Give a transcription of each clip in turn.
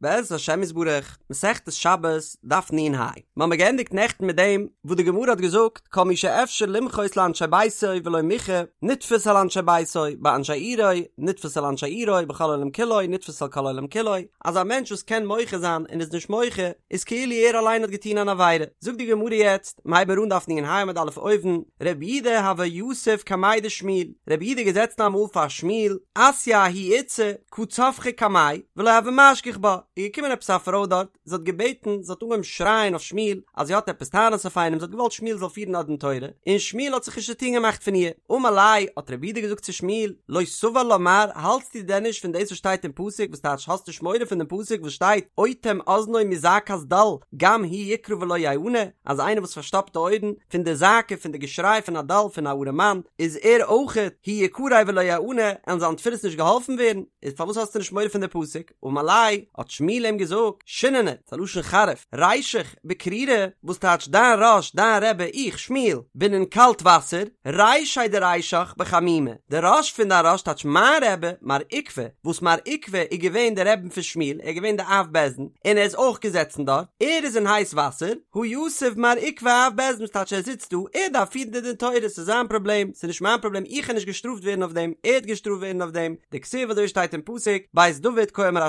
בעזרת השם יתברך, מסכת שבת, דף נ"ה. מ'האמיר געענדיגט נעכטן מיט דעם וואס די גמרא האט געזאגט כל מי שאפשר למחות לאנשי ביתו ולא מיחה, נתפס על אנשי ביתו, באנשי עירו, נתפס על אנשי עירו, בכל העולם כולו, נתפס על כל העולם כולו, אז א מענטש וואס קען מוחה זיין און איז נישט מוחה, איז כאילו ער אליין האט געטון אן עבירה. זאגט די גמרא יעצט, מ'הייבן מיר אן דף נ"ה עמוד א' אויבן, רב יהודה הוה יתיב קמיה דשמואל, רב יהודה איז געזעצן אמאל פאר שמואל, אתיא ההיא איתתא, קא צווחא קמיה, ולא הוה משגיח בה, איז געקומען עפעס א פרוי דארט, זי האט געבעטן, זי האט אנגעהויבן שרייען אויף שמואל, אז זי האט עפעס טענות אויף איינעם, זי האט געוואלט שמואל זאל פירן א דין תורה, און שמואל האט זיך נישט צוטון געמאכט פון איר. אמר ליה, האט רב יהודה געזאגט צו שמואל, לא סבר לה מר, האלטסטו דען נישט פון דאס וואס שטייט אין פסוק, וואס טייטש האסט נישט מורא פון דעם פסוק וואס שטייט, אוטם אזנו מזעקת דל, גם הוא יקרא ולא יענה, אז איינער וואס פארשטאפט די אויערן פון די זעקה פון די געשריי פון א דל פון א ארעמאן, איז ער אויכעט הוא יקרא ולא יענה, עלן זיין תפילות נישט געהאלפן ווערן, איז פארוואס האסטו נישט מורא פון די פסוק? אמר ליה, האט שמואל אים געזאגט, שיננא, ס'איז א לשון חריף, רישך בקרירי, וואס טייטש דיין ראש, דיין רבי, איך, שמואל, בין אין קאלט וואסער, רישיה דרישך בחמימי, די ראש פון דיין ראש טייטש מיין רבי, מר עוקבא, וואס מר עוקבא איז געווען די רבי פון שמואל, ער איז געווען די אב בית דין, און ער איז אויך געזעצן דארט, ער איז אין הייס וואסער, הא יתיב מר עוקבא אב בית דין, וואס טייטש ער זיצט דא, ער דארף פירן די דין תורה, ס'איז זיין פראבלעם, ס'איז נישט מיין פראבלעם, איך קען נישט געשטראפט ווערן אויף דעם, ער וועט געשטראפט ווערן אויף דעם, דכתיב אזוי שטייט אין פסוק, בית דוד כה אמר ה',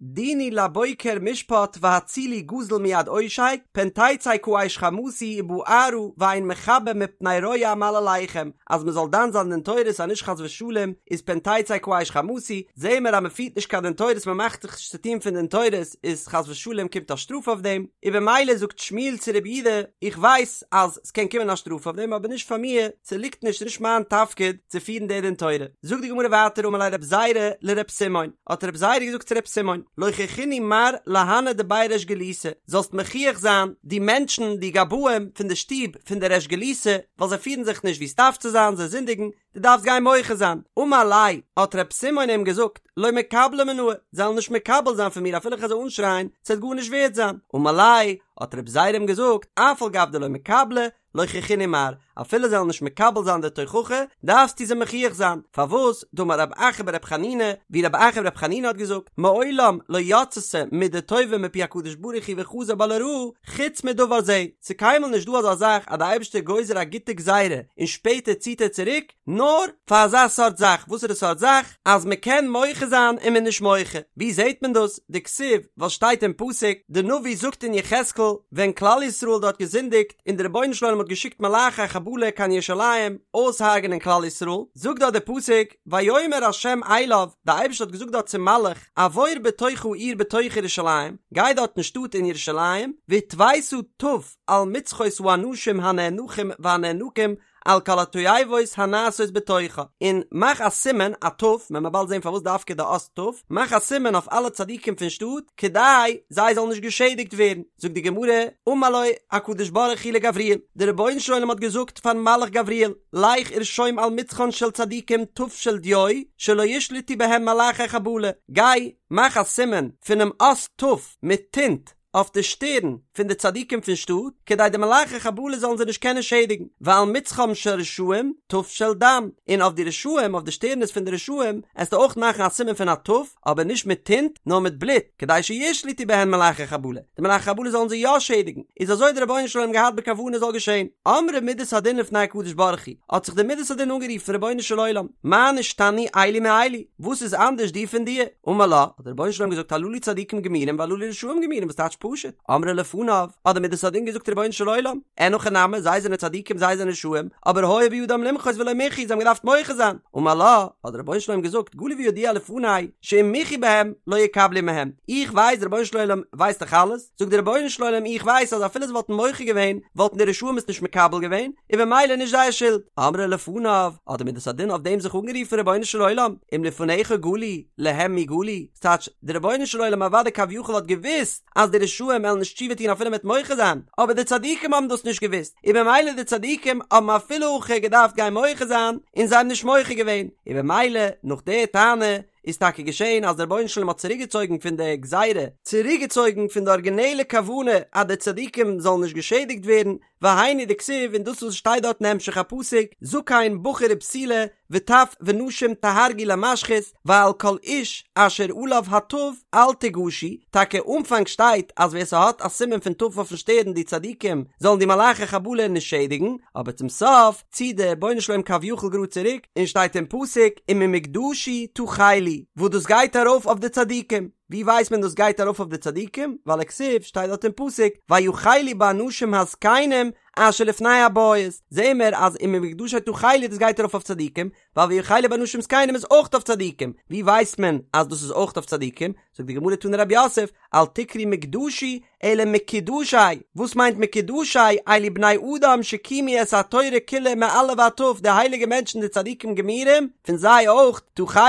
דינו לבוקר משפט והצילו גזול מיד עושק, פן תצא כאש חמתי ובערה ואין מכבה מפני רוע מעלליכם, אז מען זאל דן זיין דין תורות אז נישט חס ושלום איז פן תצא כאש חמתי, זעהן מיר אז מען פירט נישט קיין דין תורות מען מאכט זיך נישט צו טון פון דין תורות איז חס ושלום קומט א שטראף אויף דעם, און במילא זאגט שמואל צו רב יהודה איך ווייס אז ס'קען קומען א שטראף אויף דעם אבער נישט פאר מיר, ס'ליגט נישט ס'נישט מיין תפקיד צו פירן די דין תורה. זאגט די גמרא ווייטער אמר ליה רב זירא לרב סימון, האט רב זירא געזאגט צו רב סימון, לוכיחינהו מר להנהו דבי ריש גלותא, זאלסט מוכיח זיין די מענטשן די גבאים פון די שטוב פון די ריש גלותא, ווייל זיי פירן זיך נישט ווי ס'דארף צו זיין, זיי זינדיגן, דו דארפסט גיין מוחה זיין. אמר ליה, האט רב סימון אים געזאגט, לא מקבלי מינאי, זיי וועלן נישט מקבל זיין פון מיר אפילו איך וועל זיי אנשרייען, ס'וועט גארנישט ווערד זיין. אמר ליה, האט רב זירא אים געזאגט, אף על גב דלא מקבלי, לוכיחינהו מר, אפילו זיי וועלן נישט מקבל זיין די תוכחה, דארפסטו זיי מוכיח זיין. פארוואס? דאמר רב אחא ברב חנינא, ווי רב אחא ברב חנינא האט געזאגט, מעולם לא יצתה מידה טובה מפי הקדוש ברוך הוא וחזר בה לרעה, חוץ מדבר זה, ס'איז קיינמאל נישט דא אזא זאך אז די אייבערשטער גוזר א גוטע גזירה און שפעטער ציט ער צוריק, נאר פאר אזא סארט זאך, וואסערע סארט זאך? אז מ'קען מוחה זיין און מ'איז נישט מוחה. ווי זעט מען דאס? דכתיב, ווייל שטייט אין פסוק, די נביא זאגט אין יחזקאל, ווען כלל ישראל האט דארט געזינדיגט און די רבונו של עולם האט געשיקט מלאכי חבלה קיין ירושלים אויסהרג'נען כלל ישראל, זאגט דארט די פסוק, ויאמר ה' אליו, די אייבערשטער האט געזאגט דארט צום מלאך, עבור בתוך העיר בתוך ירושלים, גיי דארט אין שטאט אין ירושלים, והתוית ת' על מצחות האנשים הנאנחים והנאנקים על כל התועבות הנעשות בתוכה, און מאך א סימן, א ת', מען וועט באלד זען פארוואס דווקא די אות ת', מאך א סימן אויף אלע צדיקים פון שטאט, כדי זיי זאלן נישט געשעדיגט ווערן. זאגט די גמרא, אמר לו הקדוש ברוך הוא לגבריאל, דער רבונו של עולם האט געזאגט פארן מלאך גבריאל, לך ורשום על מצחן של צדיקים ת' של דיו, שלא ישלטו בהם מלאכי חבלה, גיי, מאך א סימן פונעם אות ת' מיט טינט אויף די שטערן פון די צדיקים פון שטאט, כדי די מלאכי חבלה זאלן זיי נישט קענען שעדיגן, ועל מצחם של רשעים ת' של דם, און אויף די רשעים, אויף די שטערנס פון די רשעים, עסטו אויך מאכן א סימן פון א ת', אבער נישט מיט טינט, נאר מיט בלוט, כדי שישלטו בהן מלאכי חבלה, די מלאכי חבלה זאלן זיי יא שעדיגן, איז אזוי האט דער רבונו של עולם געהאט בכוונה זאל געשען. אמרה מידת הדין לפני הקדוש ברוך הוא, האט זיך די מידת הדין אנגערופן, רבונו של עולם, מה נשתנו אלו מאלו, וואס איז אנדערש די פון די? אמר לה, האט דער רבונו של עולם געזאגט הללו צדיקים גמורים והללו רשעים גמורים, וואס טייטש פשוט? אמרה לפניו, האט די מידת הדין געזאגט רבונו של עולם, אין הכי נמי, זיי זענען צדיקים זיי זענען רשעים, אבער היה בידם למחות ולא מיחו, זיי האבן געדארפט מוחה זיין, אמר לה, האט דער רבונו של עולם געזאגט, גלוי וידוע לפני, שאם מיחו בהם, לא יקבלו מהם, איך ווייס, דער רבונו של עולם ווייסט דאך אלעס, זאגט דער רבונו של עולם איך ווייס אז אפילו זיי וואלטן מוחה געווען, וואלטן די רשעים עס נישט מקבל געווען, און במילא נישט זייער שולד. אמרה לפניו, האט די מידת הדין אויף דעם זיך אנגערופן רבונו של עולם, אם לפניך גלוי, להם מי גלוי, ס'טייטש, דער רבונו של עולם אוודאי כביכול האט געוואוסט אז די רשעים וועלן נישט תשובה טון אפילו מ'וועט מוחה זיין, אבער די צדיקים האבן דאס נישט געוואוסט, און במילא די צדיקים האבן אפילו הכי געדארפט גיין מוחה זיין, און זיי האבן נישט מוחה געווען, און במילא נאך די טענה. איז טאקע געשען אז דער רבונו של עולם האט צוריקגעצויגן פון די גזירה, צוריקגעצויגן פון די ארגינעלע כוונה אז די צדיקים זאלן נישט געשעדיגט ווערן, והיינו דכתיב און דאס וואס שטייט דארט אין המשך הפסוק, זקן בחור ובתולה וטף ונשים תהרגו למשחית, ועל כל איש אשר עליו התו אל תגשו, טאקע אנפאנג שטייט אז ווער ס'האט א סימן פון ת' אויפן שטערן די צדיקים זאלן די מלאכי חבלה נישט שעדיגן, אבער צום סוף ציט דער רבונו של עולם כביכול גראד צוריק און שטייט אין פסוק וממקדשי תחלו וואס דאס גייט ארויף אויף די צדיקים, ווי ווייסט מען דאס גייט ארויף אויף די צדיקים? ווייל וכתיב שטייט דארט אין פסוק ויחלו באנשים הזקנים אשר לפני הבית, זעהן מיר אז וממקדשי תחלו דאס גייט ארויף אויף צדיקים, ווייל ויחלו באנשים זקנים איז אויך אויף צדיקים, ווי ווייסט מען אז דאס איז אויך אויף צדיקים? זאגט די גמרא תני רב יוסף, אל תקרי מקדשי אלא מקודשי, וואס מיינט מקודשי? אלו בני אדם שקיימו את התורה כולה מא' ועד ת', די הייליגע מענטשן די צדיקים גמורים, פון זיי אויך, תחלו,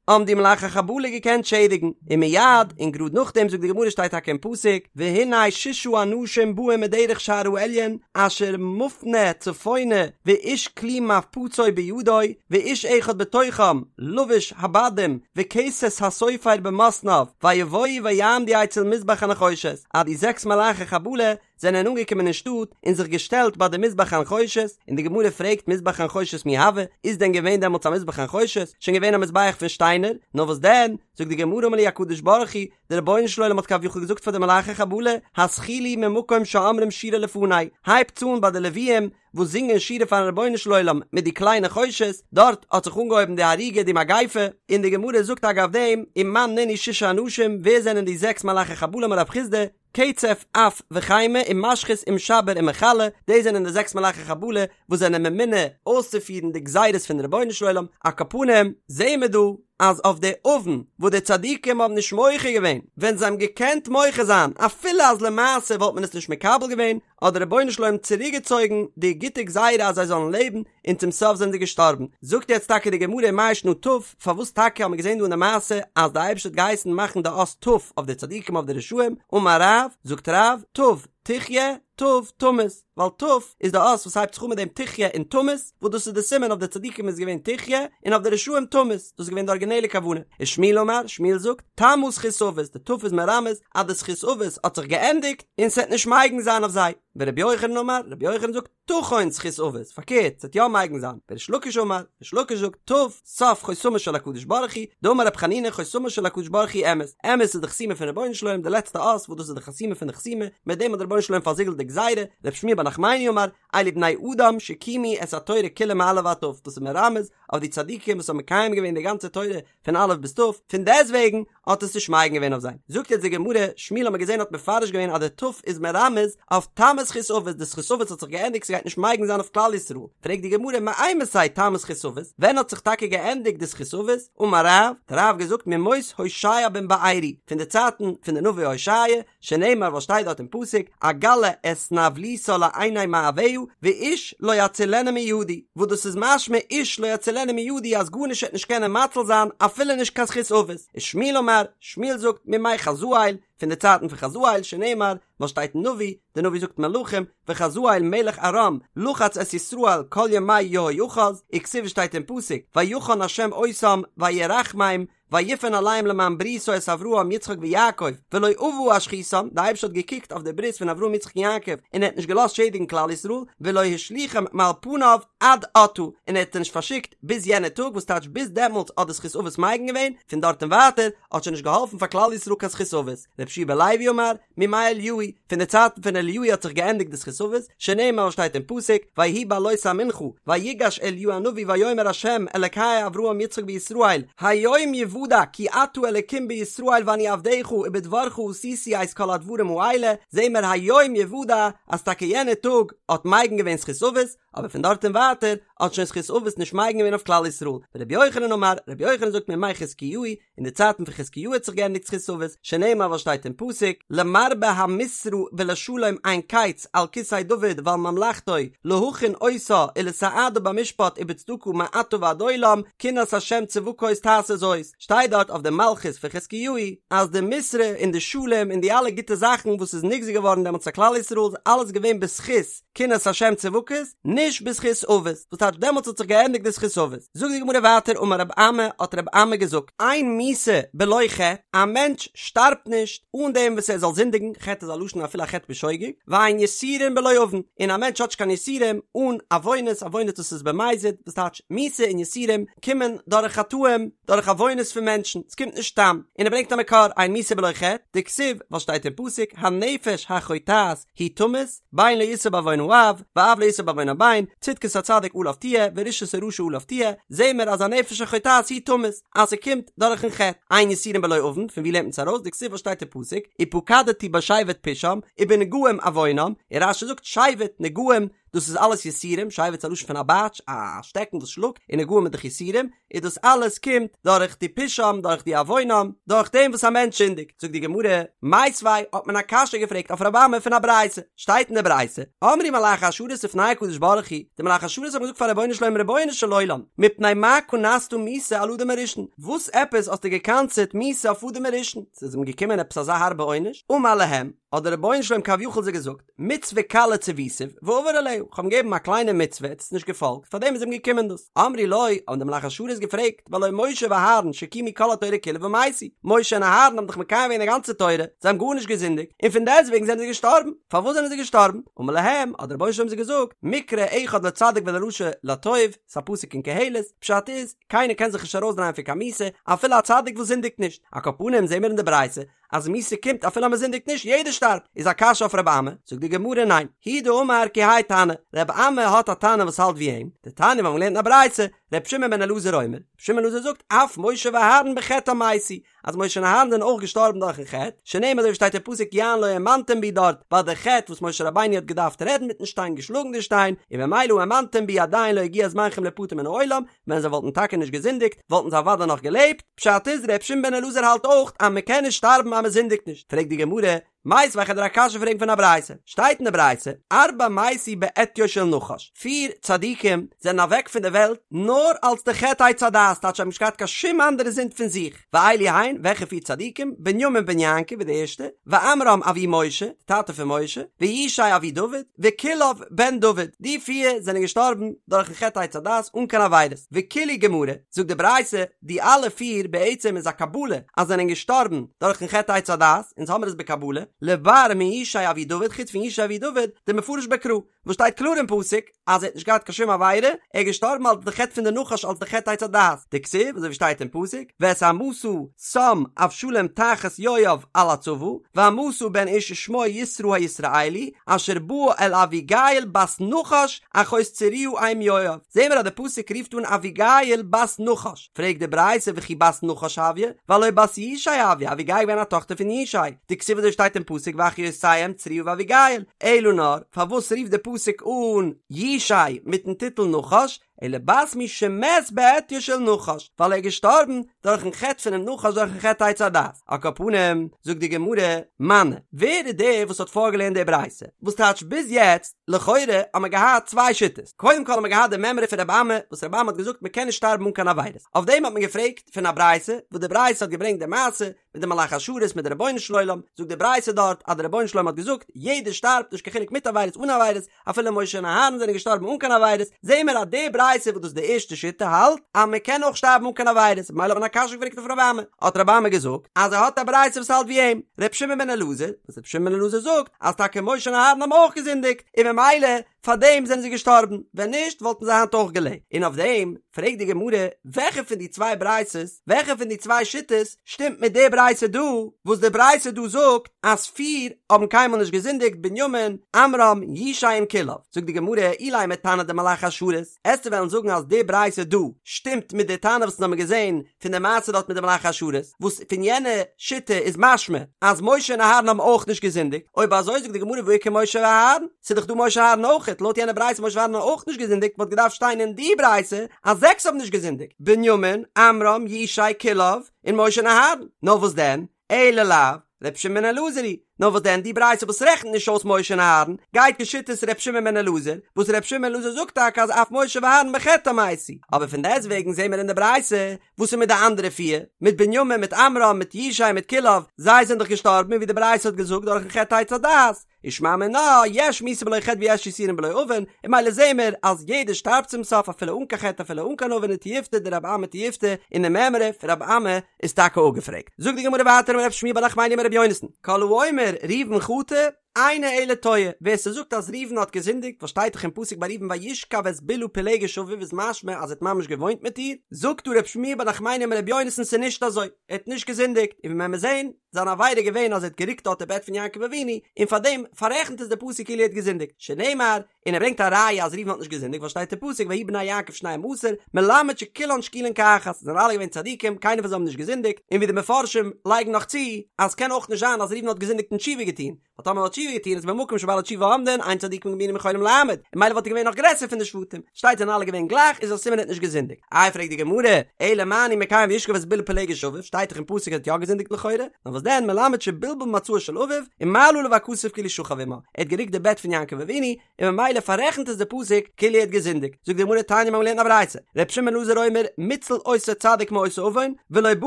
האבן די מלאכי חבלה געקענט שעדיגן, ומיד, און גראד נאכדעם זאגט די גמרא שטייט טאקע אין פסוק, והנה ששה אנשים באים מדרך שער העליון אשר מפנה צפונה ואיש כלי מפצו בידו ואיש אחד בתוכם לבוש הבדים וכסת הסופר במתניו ויבואו ויעמדו אצל מזבח הנחושת אז די זעקס מלאכי חבלה זענען אנגעקומען אין שטאט און זיך געשטעלט ביי די מזבח הנחושת און די גמרא פרעגט מזבח הנחושת מי הוה איז דען געווען דעמאלטס א מזבח הנחושת שוין געווען א מזבח פון שטיינער נאר וואס דען זאגט די גמרא אמר להו הקדוש ברוך הוא דער רבונו של עולם האט כביכול געזאגט פאר די מלאכי חבלה, התחילו ממקום שאומרים שירה לפני, הייבטס אן ביי די לוויים וואס זינגען שירה פארן רבונו של עולם מיט די כלי נחושת, דארט האט זיך אנגעהויבן די הריגה די מגיפה, און די גמרא זאגט אגב דעם, ומאן נינהו ששה אנשים, ווער זענען די זעקס מלאכי חבלה אמר רב חסדא, קצף אף וחימה ומשחית ומשבר ומכלה, דאס זענען די זעקס מלאכי חבלה וואס זענען ממונה אויסצופירן די גזירות פון רבונו של עולם, על כל פנים זעהן מיר דא אז אויף די עוון וואס די צדיקים האבן נישט מוחה געווען ווען זיי האבן געקענט מוחה זיין אפילו אז למעשה וואלט מען עס נישט מקבל געווען, האט דער רבונו של עולם צוריקגעצויגן די גוטע גזירה אז זיי זאלן לעבן, און צום סוף זענען זיי געשטארבן. זאגט יעצט טאקע די גמרא מאי שנא ת', פארוואס טאקע האט מען געזען דא אין די מעשה אז די אייבערשטער האט געהייסן מאכן די אות ת' אויף די צדיקים אויף די רשעים, אמר רב, זאגט רב, ת' תחיה, ת' תמות, ווייל ת' איז די אות וואס הייבט זיך אן מיט דעם תחיה און תמות, וואס דאס איז די סימן אויף די צדיקים איז געווען תחיה, און אויף די רשעים תמות, דאס איז געווען די ארגינעלע כוונה. ושמואל אמר, שמואל זאגט, תמה זכות אבות, די ת' איז מרמז אז די זכות אבות האט זיך געענדיגט, און ס'וועט נישט מגין זיין אויף זיי. ורבי יוחנן אמר, רבי יוחנן זאגט, תחון זכות אבות, פארקערט, ס'וועט יא מגין זיין. וריש לקיש אמר, ריש לקיש זאגט, ת', סוף חותמו של הקדוש ברוך הוא, דאמר רב חנינא חותמו של הקדוש ברוך הוא אמת, אמת איז די חתימה פון רבונו של עולם די לעצטע אות וואס דאס איז די חתימה פון די חתימה, מיט דעם האט דער רבונו של עולם פארזיגלט די גזירה, רב שמואל בר נחמני אמר, אלו בני אדם שקיימו את התורה כולה מא' ועד ת', דאס איז מרמז אויף די צדיקים וואס האבן מקיים געווען די גאנצע תורה פון א' ביז ת', פון דעסטוועגן האט עס נישט מגין געווען אויף זיי. זאגט יעצט די גמרא, שמואל האט מען געזען האט מפרש געווען אז די ת' איז מרמז אויף תמה זכות אבות, די זכות אבות האט זיך געענדיגט ס'גייט נישט מגין זיין אויף כלל ישראל, פרעגט די גמרא מאימתי תמה זכות אבות, ווען האט זיך טאקע געענדיגט די זכות אבות, אמר רב, האט רב געזאגט מימות הושע בן בארי, פון די צייטן פון די נביא הושע, שנאמר וואס שטייט דארט אין פסוק, אגלה את נבלותה לעיני מאהביה, ואיש לא יצילנה מידי, וואס דאס איז משמע איש לא יצילנה מידי אז גארנישט וועט נישט קענען מציל זיין אפילו נישט קיין זכות אבות, ושמואל אמר, שמואל זאגט, מימי חזאל, פון די צייטן פון חזאל, שנאמר, וואס שטייט אין נביא, די נביא זאגט מלכים, וחזאל מלך ארם לחץ את ישראל כל ימי יהואחז, וכתיב שטייט אין פסוק, ויחן ה' אותם וירחמם, ויפן אליהם למען בריתו את אברהם יצחק ויעקב ולא אבה השחיתם, די אייבערשטער האט געקוקט אויף די ברית פון אברהם יצחק און יעקב און ער האט נישט געלאזט שעדיגן כלל ישראל, ולא השליכם מעל פניו עד עתה, און ער האט זיי נישט פארשיקט ביז יענע טאג, וואס טייטש ביז דעמאלטס האט די זכות אבות מגין געווען, פון דארט און ווייטער האט שוין נישט געהאלפן פאר כלל ישראל קיין זכות אבות, רבי יהושע בן לוי אמר, מימי אליהו, פון די צייטן פון אליהו האט זיך געענדיגט די זכות אבות, שנאמר וואס שטייט אין פסוק, ויהי בעלות המנחה, ויגש אליהו הנביא ויאמר ה' אלקי אברהם יצחק וישראל, היום יוודע כי אתה אלקים בישראל ואני עבדך ובדברך עשיתי את כל הדברים האלה, זעהן מיר היום יוודע אז טאקע יענע טאג האט מגין געווען זכות אבות, אבער פון דארט און ווייטער האט שוין זכות אבות נישט מגין געווען אויף כלל ישראל, ורבי יוחנן אמר, רבי יוחנן זאגט מימי חזקיהו, אין די צייטן פון חזקיהו האט זיך געענדיגט זכות אבות, שנאמר וואס שטייט אין פסוק, למרבה המשרה ולשלום אין קץ על כסא דוד ועל ממלכתו להכין אותה ולסעדה במשפט ובצדקה מעתה ועד עולם, קנאת ה' צבקות תעשה זאת, שטייט. שטייט דארט אויף די מלכות פון חזקיהו אז די משרה און די שלום און די אלע גוטע זאכן וואס איז נגזר געווארן דעמאלטס אויף כלל ישראל איז אלעס געווען בזכות קנאת השם צבקות, נישט בזכות אבות, וואס טייטש דעמאלטס האט זיך געענדיגט די זכות אבות. זאגט די גמרא ווייטער אמר רב אמי האט רב אמי געזאגט, אין מיתה בלא חטא, א מענטש שטארבט נישט אן דעם וואס ער זאל זינדיגן, חטא איז א לשון אפילו א חטא בשוגג, ואין יסורין בלא עוון, און א מענטש האט נישט קיין יסורים אן עוונות, עוונות דאס איז במזיד, וואס טייטש מיתה און יסורים קומען דורך חטאים, דורך עוונות פון מענטשן, עס קומט נישט סתם, און ער ברענגט א מקור, אין מיתה בלא חטא, דכתיב, וואס שטייט אין פסוק, הנפש החוטאת היא תמות, בן לא ישא בעוון האב, ואב לא ישא בעוון הבן, צדקת הצדיק עליו תהיה, ורשעת הרשע עליו תהיה, זעהן מיר אז הנפש החוטאת היא תמות, אז ס'קומט דורכן חטא, אין יסורים בלא עוון, פון ווי לערנט מען עס ארויס, דכתיב וואס שטייט אין פסוק, ופקדתי בשבט פשעם, ובנגעים עוונם, און רש"י זאגט שבט, נגעים, דאס איז אלעס יסורים, שבט איז א לשון פון א בייטש, א שטעקן וואס שלאגט, און נגעים איז דאך יסורים, איז דאס אלעס קומט דורך די פשעם, דורך די עוונם, דורך דעם וואס א מענטש זינדיגט. זאגט די גמרא, מיתיבי האט מען א קשיא געפרעגט אויף רבי אמי פון א ברייתא, שטייט אין די ברייתא, אמרו מלאכי השרת לפני הקדוש ברוך הוא, די מלאכי השרת האבן געזאגט פאר רבונו של עולם רבונו של עולם, מפני מה קנסת מיתה על אדם הראשון, וואס עפעס האסטו גע'קנס'עט מיתה אויף אדם הראשון, ס'איז אים געקומען עפעס אזא הארבע עונש, אמר להם, האט דער רבונו של עולם כביכול זיי געזאגט, מצוה קלה צויתיו ועבר עליה, איך האב אים געגעבן א קליינע מצוה, ער האט עס נישט געפאלגט, פאר דעם איז אים געקומען דאס. אמרו לו, האבן די מלאכי השרת געפרעגט, והלא משה ואהרן שקיימו כל התורה כולה ומתו, משה און אהרן האבן דאך מקיים געווען די גאנצע תורה, זיי האבן גארנישט געזינדיגט, און פון דעסטוועגן זענען זיי געשטארבן, פארוואס זענען זיי געשטארבן? אמר להם, האט דער רבונו של עולם זיי געזאגט, מקרא אחד לצדיק ולרשע לטוב, ס'איז א פסוק אין קהלת, פשט איז, קיינער קען זיך נישט ארויסדרייען פון קיין מיתה, אפילו א צדיק וואס זינדיגט נישט, על כל פנים זעהן מיר אין די ברייתא, אז מיתה קומט אפילו אז מען זינדיגט נישט, יעדער שטארבט, איז א קשיא אויף רבי אמי, זאגט די גמרא ניין, הוא דאמר כי האי תנא, רבי אמי האט א תנא וואס האלט ווי אים, דתניא מיר האבן געלערנט אין א ברייתא, רבי שמעון בן אלעזר אומר, רבי שמעון בן אלעזר זאגט אף משה ואהרן בחטאם מתו, אז משה און אהרן זענען אויך געשטארבן דורכן חטא, שנאמר אזוי ווי שטייט אין פסוק יען לא האמנתם בי דארט ביי די חטא וואס משה רבינו האט געדארפט רעדן מיטן שטיין געשלאגן די שטיין, און ממילא האמנתם בי עדיין לא הגיע זמנכם ליפטר מן העולם, ווען זיי וואלטן טאקע נישט געזינדיגט וואלטן זיי אוודאי נאך געלעבט, פשט איז ר' שמעון בן אלעזר האלט אויך אז מען קען נישט שטארבן אז מען זינדיגט נישט, פרעגט די גמרא, מיתיבי כ'וועל דיר א קשיא פרעגן פון א ברייתא, שטייט אין די ברייתא, ארבעה מתו בעטיו של נחש, פיר צדיקים זענען אוועק פון די וועלט נאר אלס די חטא עץ הדעת, טייטש זיי האבן נישט געהאט קיין שום אנדערע זינד פון זיך, ואלו הן, וועלכע פיר צדיקים? בנימין בן יעקב איז די ערשטע, ועמרם אבי משה, די טאטע פון משה, וישי אבי דוד, וכלאב בן דוד, די פיר זענען געשטארבן דורכן חטא עץ הדעת אן קיין עבירות, וכולהו גמרא, זאגט די ברייתא, די אלע פיר בעצם איז א קבלה אז זענען געשטארבן דורכן חטא עץ הדעת, אונז האמיר עס בקבלה, לבר מישי אבי דוד חוץ פון ישי אבי דוד, דמפרש בקרא, וואס שטייט קלאר אין פסוק אז ער האט נישט געהאט קיין שום עבירה, ער איז געשטארבן אלס די חטא פון די נחש אלס די חטא עץ הדעת, דכתיב אזוי ווי שטייט אין פסוק, ואת עמשא שם אבשלום תחת יואב על הצבא, ועמשא בן איש שמו יתרא הישראלי, אשר בא אל אביגיל בת נחש אחות צרויה אם יואב, זעהן מיר אז די פסוק רופט אן אביגיל בת נחש, פרעגט די ברייתא וכי בת נחש הויא, והלא בת ישי הויא, אביגיל איז געווען א טאכטער פון ישי, דכתיב אזוי שטייט אין פסוק ואחיותיהם צרויה ואביגיל, אלא נאר, פארוואס רופט די פסוק אן ישי מיטן טיטל נחש, אלא בת מי שמת בעטיו של נחש, ווייל ער איז געשטארבן דורכן חטא פונעם נחש דורכן חטא עץ הדעת, על כל פנים, זאגט די גמרא, מני, ווער איז דער וואס האט פארגעלערנט די ברייתא? וואס טייטש ביז יעצט, לכאורה האט מען געהאט צוויי שיטות, קודם כל האט מען געהאט די מימרא פון רבי אמי, וואס רבי אמי האט געזאגט מען קען נישט שטארבן אן קיין עבירות, אויף דעם האט מען געפרעגט פון א ברייתא, וואס די ברייתא האט געברענגט די מעשה מיט די מלאכי השרת מיט די רבונו של עולם, זאגט די ברייתא דארט אז די רבונו של עולם האט געזאגט, יעדער שטארבט נישט קיין חילוק מיט עבירות אן עבירות, אפילו משה און אהרן זענען געשטארבן אן קיין עבירות, זעהן מיר אז די ברייתא וואס דאס איז די ערשטע שיטה האלט אז מען קען אויך שטארבן אן קיין עבירות, ממילא האט מען א קשיא געפרעגט אויף רבי אמי, האט רבי אמי געזאגט אז ער האט א ברייתא וואס האלט ווי אים, ר' שמעון בן אלעזר, וואס ר' שמעון בן אלעזר זאגט אז טאקע משה און אהרן האבן אויך געזינדיגט, און ממילא פאר דעם זענען זיי געשטארבן, ווען נישט וואלטן זיי היינט אויך געלעבט, און אויף דעם פרעגט די גמרא, וועלכע פון די צוויי ברייתות, וועלכע פון די צוויי שיטות שטימט מיט די ברייתא דא, וואס די ברייתא דא זאגט אז פיר האבן קיינמאל נישט געזינדיגט, בנימין, עמרם, ישי און כלאב, זאגט די גמרא, אילימא תנא דמלאכי השרת, עסטו וועלן זאגן אז די ברייתא דא שטימט מיט די תנא וואס אונז האבן געזען פון די מעשה דארט מיט די מלאכי השרת, וואס פון יענע שיטה איז משמע אז משה און אהרן האבן אויך נישט געזינדיגט, אויב אזוי זאגט די גמרא והא איכא משה ואהרן, ס'איז דאך דא משה און אהרן אויכעט, לויט יענע ברייתא משה ואהרן האבן אויך נישט געזינדיגט וואלט געדארפט שטיין אין די ברייתא אז זעקס האבן נישט געזינדיגט, בנימין, עמרם, ישי, כלאב, און משה און אהרן, נאר וואס דען? אלא לאו, ר' שמעון בן אלעזר היא. נאר וואס דען די ברייתא וואס רעכנט נישט אויס משה און אהרן, גייט כשיטת ר' שמעון בן אלעזר, וואס ר' שמעון בן אלעזר זאגט טאקע אז אף משה ואהרן בחטאם מתו, אבער פון דעסטוועגן זעהן מיר אין די ברייתא, וואס איז מיט די אנדערע פיר, מיט בנימין, מיט עמרם, מיט ישי, מיט כלאב, זיי זענען דאך געשטארבן ווי די ברייתא האט געזאגט דורכן חטא עץ הדעת, ושמע מינה, יש מיתה בלא חטא ויש יסורים בלא עוון, און ממילא זעהן מיר אז יעדער שטארבט צום סוף אפילו אן קיין חטא אפילו אן קיין עוון ותיובתא דרבי אמי תיובתא, און די מימרא פון רבי אמי איז טאקע אפגעפרעגט. זאגט די גמרא ווייטער אמר רב שמואל בר נחמני אמר רבי יונתן, כל האומר ראובן חטא, אינו אלא טועה, ווער ס'זאגט אז ראובן האט געזינדיגט, וואס שטייט דאך אין פסוק ביי ראובן וישכב את בלהה פילגש אביו איז משמע אז ער האט ממש געוואוינט מיט איר, זאגט דא רב שמואל בר נחמני אמר רבי יונתן ס'איז נישט אזוי, ער האט נישט געזינדיגט, און ווי מען וועט זעהן, זיין עבירה איז געווען אז ער האט גערוקט דארט די בעט פון יעקב אבינו, און פאר דעם פאררעכנט עס די פסוק כאילו ער האט געזינדיגט, שנאמר, און ער ברענגט א ראיה אז ראובן האט נישט געזינדיגט ווייל שטייט אין פסוק ויהי בני יעקב שנים עשר, מלמד שכולן שקולין כאחת, זיי זענען אלע געווען צדיקים, קיינער פון זיי האבן נישט געזינדיגט, און ווי די מפרשים לייגן נאך צו, אז קען אויך נישט זיין אז ראובן האט געזינדיגט און תשובה געטון, ווייל טאמער האט תשובה געטון איז במקום שבעלי תשובה עומדין, אין צדיקים גמורים יכולים לעמוד, און ממילא וואלט ער געווען נאך גרעסער פון די שבטים, שטייט זענען אלע געווען גלייך איז א סימן ער האט נישט געזינדיגט. איי פרעגט די גמרא, אלא מה אני מקיים וישכב את בלהה פילגש אביו, שטייט דאך אין פסוק ער האט יא געזינדיגט לכאורה, נאר וואס דען מלמד שבלבל מצעו של אביו, ומעלה עליו הכתוב כאילו שכב עמה, ער האט גערוקט די בעט פון יעקב אבינו, און ממילא פאררעכנט עס די פסוק כאילו ער האט געזינדיגט, זאגט די גמרא תניא מ'האבן געלערנט א ברייתא, ר' שמעון בן אלעזר אומר מוצל אותו צדיק מאותו עוון, ולא בא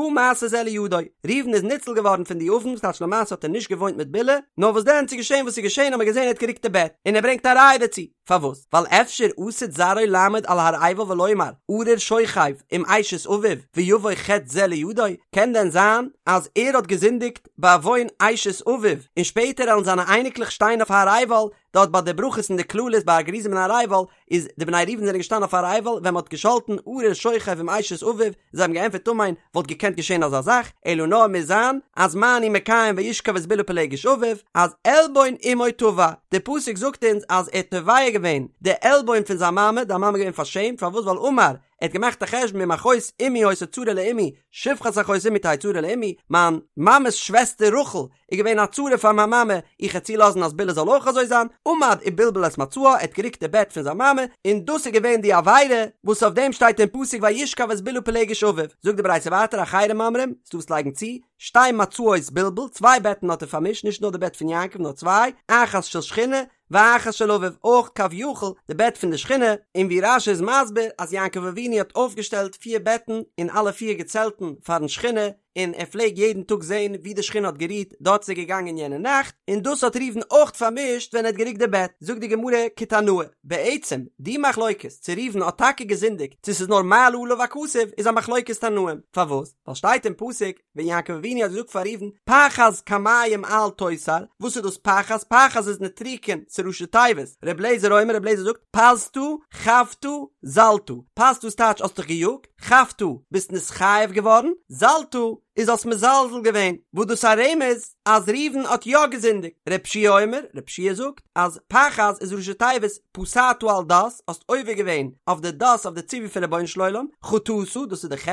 מעשה זה לידו, ראובן איז ניצול געווארן פון די עוון, ס'טייטש למעשה האט ער נישט געוואוינט מיט בלהה, נאר וואס דען ס'איז געשען וואס ס'איז געשען האט מען געזען ער האט גערוקט די בעט, און ער ברענגט א ראיה דערצו. פארוואס? ווייל אפשר עתיד זרעו לעמוד על הר עיבל ולומר ארור שוכב עם אשת אביו ויבוא חטא זה לידו, קען דען זיין אז ער האט געזינדיגט בעוון אשת אביו און שפעטער עלן זיינע אייניקלעך שטיין אויף הר עיבל, דארט ביי די ברכות און די קללות ביי הר גריזים און הר עיבל איז די בני ראובן זענען געשטאנען אויף הר עיבל ווען מען האט געשאלטן ארור שוכב עם אשת אביו, זיי האבן געענטפערט אמן, וואלט געקענט געשען אזא זאך, אלא נאר מוז זיין אז מה אני מקיים וישכב את בלהה פילגש אביו, אז עלבון אמו תבע, די פסוק זאגט אונז אז ער האט תובע געווען די עלבון פון זיין מאמע, די מאמע איז געווען פארשעמט, פארוואס ווייל אמר, ער האט געמאכט א חשבון אם אחות אמי היתה צרה לאמי, שפחת אחות אמי תהא צרה לאמי, מיין מאמע'ס שוועסטער רחל איז געווען א צרה פאר מיין מאמע, איך העט צולאזן אז בלהה זאל אויך אזוי זיין, עמד ובלבל את מצעה, ער האט גערוקט די בעט פון זיין מאמע, און דאס איז געווען די עבירה וואס אויף דעם שטייט אין פסוק וישכב את בלהה פילגש אביו, זאגט די ברייתא ווייטער אחרים אומרים, ס'דא וואס לייגן צו, שתי מצעות בלבל, צוויי בעטן האט ער פארמישט, נישט נאר די בעט פון יעקב נאר צוויי, אחת של שכינה, ואחת של אביו, אויך כביכול די בעט פון די שכינה, און ווי רש"י איז מסביר אז יעקב אבינו האט אויפגעשטעלט פיר בעטן אין אלע פיר געצעלטן פארן שכינה, און ער פלעג יעדן טאג זען ווי די שכינה האט גערוהט, דארט איז ער געגאנגען יענע נאכט, און דאס האט ראובן אויך פארמישט ווען ער האט גערוקט די בעט, זאגט די גמרא כתנאי, בעצם די מחלוקת צו ראובן האט טאקע געזינדיגט צו ס'איז נאר מעלה עליו הכתוב איז א מחלוקת תנאים, פארוואס? ווייל שטייט אין פסוק ווען יעקב אבינו האט געזאגט פאר ראובן פחז כמים אל תותר, וואס איז דאס פחז? פחז איז נוטריקון, ס'איז ראשי תיבות, ר' לעזער אומר ר' לעזער זאגט פזת חבת זלת, פזת איז טייטש האסט דיך געיאגט, חבת, ביסט נתחייב געווארן, זלת, איז האסט מזלזל געווען, וואס דאס א רמז אז ראובן האט יא געזינדיגט, ר' יהושע אומר, ר' יהושע זאגט אז פחז איז ראשי תיבות פסעת על דת, האסט עובר געווען אויף די דת אויף די ציווי פון רבונו של עולם, חטאת, דאס איז די ח',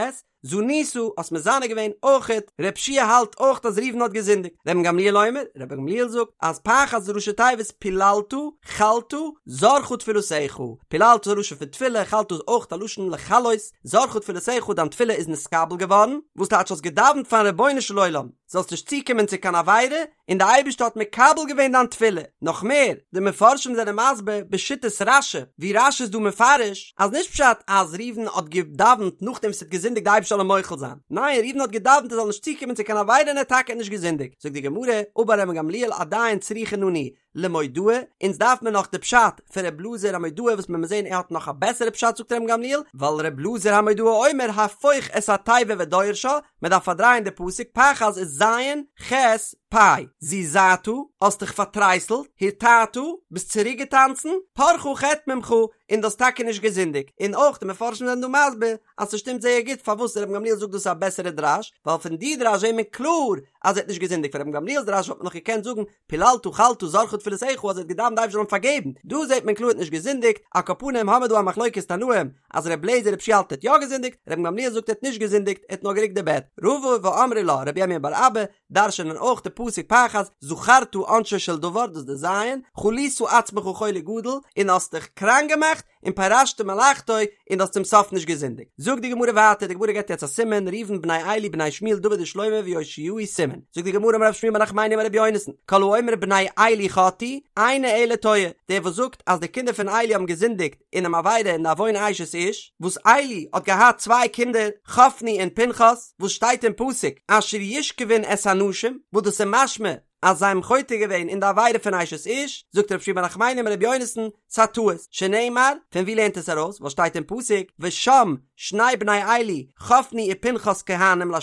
זנית, האסט מזנה געווען, אויכעט, ר' יהושע האלט אויך אז ראובן האט געזינדיגט, רבן גמליאל אומר, רבן גמליאל זאגט אז פחז איז ראשי תיבות פיללת, חלת, זרחה תפילתך, פיללת איז א לשון פון תפילה, חלת איז אויך א לשון לחלות, זרחה תפילתך דיין תפילה איז נתקבל געווארן, וואס טייטש האסט געדאווענט פארן רבונו של עולם זאלסט נישט צוקומען צו קיין עבירה, און די אייבערשטער האט מקבל געווען דיין תפילה, נאך מער, די מפרשים זענען מסביר בשיטת רש"י, ווי רש"י איז דא מפרש, אז נישט פשט אז ראובן האט געדאווענט נאכדעם וואס ער האט געזינדיגט די אייבערשטער זאל אים מוחל זיין, ניין ראובן האט געדאווענט ער זאל נישט צוקומען צו קיין עבירה און ער האט טאקע נישט געזינדיגט, זאגט די גמרא, אמר רבן גמליאל עדיין צריכין אנו למודעא, אונז דארף מען נאך די פשט פון ר' אלעזר המודעי וואס מען מוז זעהן ער האט נאך א בעסערע פשט זאגט רבן גמליאל, ווייל ר' אלעזר המודעי אומר הפוך את התיבה ודורשה, מען דארף פארדרייען די פסוק פחז איז ז' ח' פ', זעזעת, האסט דיך פארטרייסלט, הרתעת, ביסט צוריק געטאנצן, פרחה חטא ממך, און דו האסט טאקע נישט געזינדיגט, און אויך די מפרשים זענען דא מסביר אז ס'שטימט זייער גוט פארוואס רבן גמליאל זאגט דאס איז א בעסערע דרש, ווייל פון די דרש זעהט מען קלאר אז ער האט נישט געזינדיגט, פון רבן גמליאל'ס דרש וואלט מען נאך געקענט זאגן פיללת חלת זרחה תפילתך אז ער האט געדאווענט די אייבערשטער זאל אים פארגעבן, דא זעט מען קלאר ער האט נישט געזינדיגט, על כל פנים האמער דא א מחלוקת תנאים אז ר' לעזער ר' יהושע האלט ער האט יא געזינדיגט, רבן גמליאל זאגט ער האט נישט געזינדיגט ער האט נאר געריקט די בעט, רבא ואמרי לה רבי ירמיה בר אבא דרש'נען אויך די פסוק פחז זכרת עונשו של דבר דאס די ז' חלית עצמך חולי גדול און האסט דיך קראנק געמאכט און פירשת מלאכתו און און דו האסט צום סוף נישט געזינדיגט. זאגט די גמרא ווייטער, די גמרא געבט יעצט א סימן, ראובן בני עלי בני שמואל דוד ושלמה ויאשיהו סימן. זאגט די גמרא אמר רב שמואל בר נחמני אמר רבי יונתן, כל האומר בני עלי חטאו, אינו אלא טועה, דער וואס זאגט אז די קינדער פון עלי האבן געזינדיגט אינעם עבירה אין די עוון אשת איש, וואס עלי האט געהאט צוויי קינדער חפני און פנחס, וואס שטייט אין פסוק אשר ישכבון את הנשים, וואס דאס איז משמע אז זיי האבן חוטא געווען אין די עבירה פון אשת איש, זאגט רב שמואל בר נחמני אמר רבי יונתן, ס'א טעות, שנאמר, פון ווי לערנט עס ארויס, ווייל שטייט אין פסוק, ושם שני בני עלי, חפני ופנחס כהנים לה',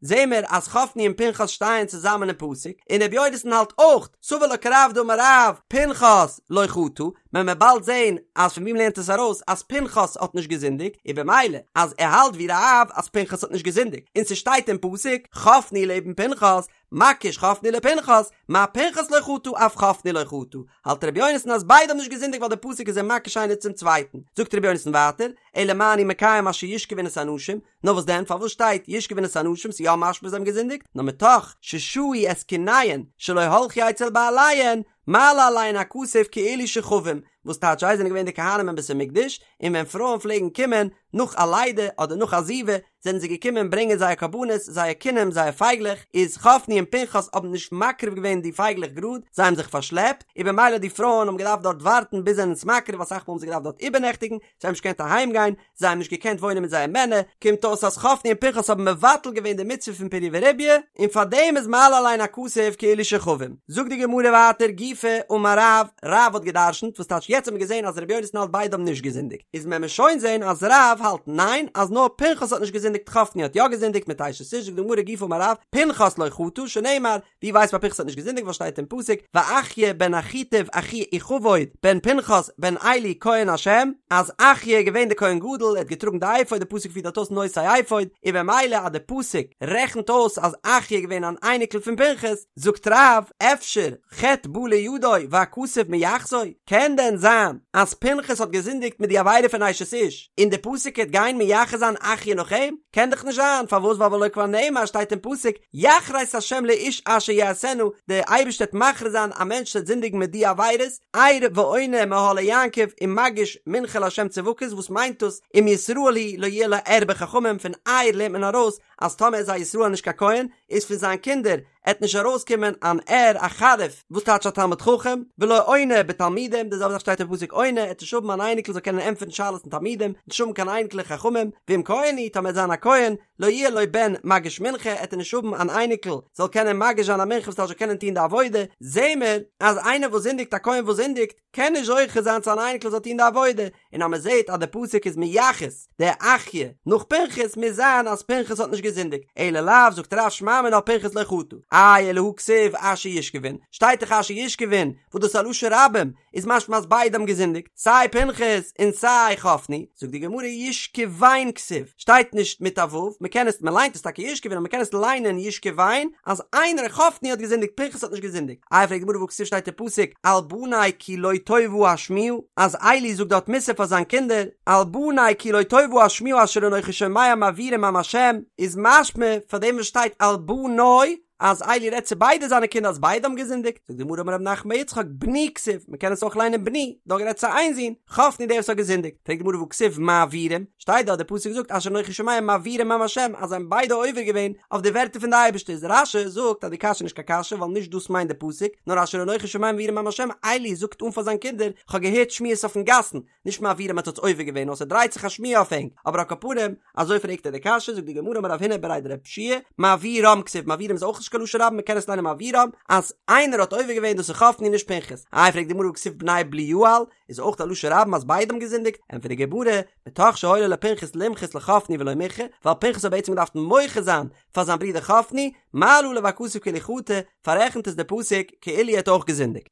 זעהן מיר אז חפני און פנחס שטייען צוזאמען אין פסוק, און רבי יונתן האלט אויך, סבר לה כרב דאמר רב, פנחס לא חטא, מען וועט באלד זעהן אז פון ווי מ'לערנט עס ארויס אז פנחס האט נישט געזינדיגט, און במילא אז ער האלט ווי רב אז פנחס האט נישט געזינדיגט, און ס'שטייט אין פסוק, חפני לעבן פנחס, מקיש חפני לפנחס, מה פנחס לא חטא אף חפני לא חטא, האלט רבי יונתן אז ביידע האבן נישט געזינדיגט ווייל די פסוק איז זיי מקיש איינער צום צווייטן, זאגט רבי יונתן ווייטער, אלא מה אני מקיים אשר ישכבון את הנשים, נאר וואס דען פארוואס שטייט ישכבון את הנשים ס'איז יא משמע זיי האבן געזינדיגט, נאר מתוך ששהו את קיניהן שלא הלכו אצל בעליהן, מעלה עליהן הכתוב כאילו שכבום, וואס טייטש זיי זענען געווען די כהנים אין בית המקדש, און ווען פרויען פלעגן קומען נאך א לידה אדער נאך א זיבה, זענען זיי געקומען ברענגען זייער קרבנות, זייער קינים, זייער פייגלעך, איז חפני און פנחס האבן נישט מקריב געווען די פייגלעך גראד, זיי האבן זיך פארשלעפט, און במילא די פרויען האבן געדארפט דארט ווארטן ביז זיי זענען עס מקריב, אסאך מאל האבן זיי געדארפט דארט איבערנעכטיגן, זיי האבן נישט געקענט אהיים גיין, זיי האבן נישט געקענט וואוינען מיט זייער מענער, קומט אויס אז חפני און פנחס האבן מבטל געווען די מצוה פון פריה ורביה, און פאר דעם איז מעלה עליהן הכתוב כאילו שכבום. זאגט די גמרא ווייטער גופא אמר רב, רב האט גע'דרשנ'ט, וואס טייטש יעצט האט מען געזען אז רבי יונתן האלט ביידע האבן נישט געזינדיגט, איז מען מיר שוין זען אז רב האלט ניין אז נאר פנחס האט נישט געזינדיגט חפני האט יא געזינדיגט מיט אשת איש, זאגט די גמרא גופא אמר רב, פנחס לא חטא, שנאמר, ווי ווייסט מען פנחס האט נישט געזינדיגט ווייל שטייט אין פסוק ואחיה בן אחיטוב אחי איכבוד בן פנחס בן עלי כהן השם אז אחיה איז געווען די כהן גדול ער האט געטראגן די אפוד די פסוק פירט דארט אויס נושא אפוד און במילא אז די פסוק רעכנט אויס אז אחיה איז געווען אן אייניקל פון פנחס זאגט רב אפשר חטא בא לידו והכתוב מייחסו קען דען זיין אז פנחס האט געזינדיגט מיט די עבירה פון אשת איש און די פסוק העט גיין מייחס זיין אחיה נאך אים? קען דאך נישט זיין פארוואס ווייל והלא כבר נאמר שטייט אין פסוק יכרת השם לאיש אשר יעשנה, דער אייבערשטער וועט מכרית זיין א מענטש וואס וועט זינדיגן מיט די עבירות, ער ועונה מאהלי יעקב ומגיש מנחה לה' צבקות, וואס מיינט דאס אם ישראל הוא לא יהיה לו ער בחכמים, פון ער לערנט מען ארויס אז טאמער איז א ישראל נישט קיין כהן, איז פון זיין קינדער עט נישט ארויסקומען אן ער א חריף, וואס טייטש א תלמיד חכם, ולא עונה בתלמידים, די זעלבע זאך שטייט אין פסוק עונה, עט נישט האבן אן אייניקל זאל קענען ענטפערן שאלות אין תלמידים, נישט האבן קיין אייניקלעך חכמים, ואם כהן הוא, טאמער עט זיין א כהן, לא יהיה לו בן מגיש מנחה, עט ער נישט האבן אן אייניקל זאל קענען מגיש זיין א מנחה וואס טייטש זאל קענען טון די עבודה, זעהן מיר אז איינער וואס זינדיגט א כהן וואס זינדיגט קען נישט זוכה זיין צו אן אייניקל זאל טון די עבודה, און אז מען זעהט אז די פסוק איז מייחס די אחיה נאך פנחס מוז זיין אז פנחס האט נישט געזינדיגט, אלא לאו זאגט רב שמע מינה פנחס לא חטא, איי אלא הא כתיב אשר ישכבון, שטייט דאך אשר ישכבון וואס דאס איז א לשון רבים, איז משמע אז ביידע האבן געזינדיגט, סיי פנחס און סיי חפני, זאגט די גמרא ישכבן כתיב, שטייט נישט מיט א ו', מען קען עס, מען ליינט עס טאקע ישכבון אבער מען קען עס ליינען ישכבן, אז איינער חפני האט געזינדיגט פנחס האט נישט געזינדיגט, איי פרעגט די גמרא והא כתיב שטייט אין פסוק על בני כי לא טובה השמועה, אז עלי זאגט דארט מוסר פאר זיין קינדער, על בני כי לא טובה השמועה אשר אנכי שומע מעבירים עם השם, איז משמע פאר דעם וואס שטייט על בני אז עלי רעדט צו ביידע זיינע קינדער אז ביידע האבן געזינדיגט, זאגט די גמרא אמר רב נחמן בר יצחק בני כתיב, מען קען עס אויך ליינען בני, דא גערעדט צו איין זון, חפני דער וואס האט געזינדיגט, פרעגט די גמרא והא כתיב מעבירים, שטייט דארט די פסוק זאגט אשר אנכי שומע מעבירים עם השם אז זיי האבן ביידע עובר געווען אויף די ווערטער פון די אייבערשטער, איז רש"י זאגט אז די קשיא איז נישט קיין קשיא ווייל נישט דאס מיינט די פסוק, נאר אשר אנכי שומע מעבירים עם השם, עלי זאגט אן פאר זיין קינדער, כ'האב געהערט שמועות אויפן גאסן, נישט מעבירים האט עטס עובר געווען נאר ס'דרייט זיך א שמועה אויף ענק, אבער על כל פנים, אזוי פרעגט ער די קשיא, זאגט די גמרא אמר רב הונא בריה דרב יהושע מעבירם כתיב, מעבירם איז אויך נישט קיין לשון רבים מ'קען עס ליינען מעבירם, אז איינער האט עובר געווען דאס איז חפני נישט פנחס, איי פרעגט די גמרא והכתיב בני בליעל, איז אויך א לשון רבים אז ביידע האבן געזינדיגט, ענטפערט די גמרא, מתוך שהיה לו לפנחס למחות לחפני ולא מיחה, ווייל פנחס האט בעצם געדארפט מוחה זיין פאר זיין ברודער חפני, מעלה עליו הכתוב כאילו חטא, פאררעכנט עס די פסוק כאילו ער האט אויך געזינדיגט.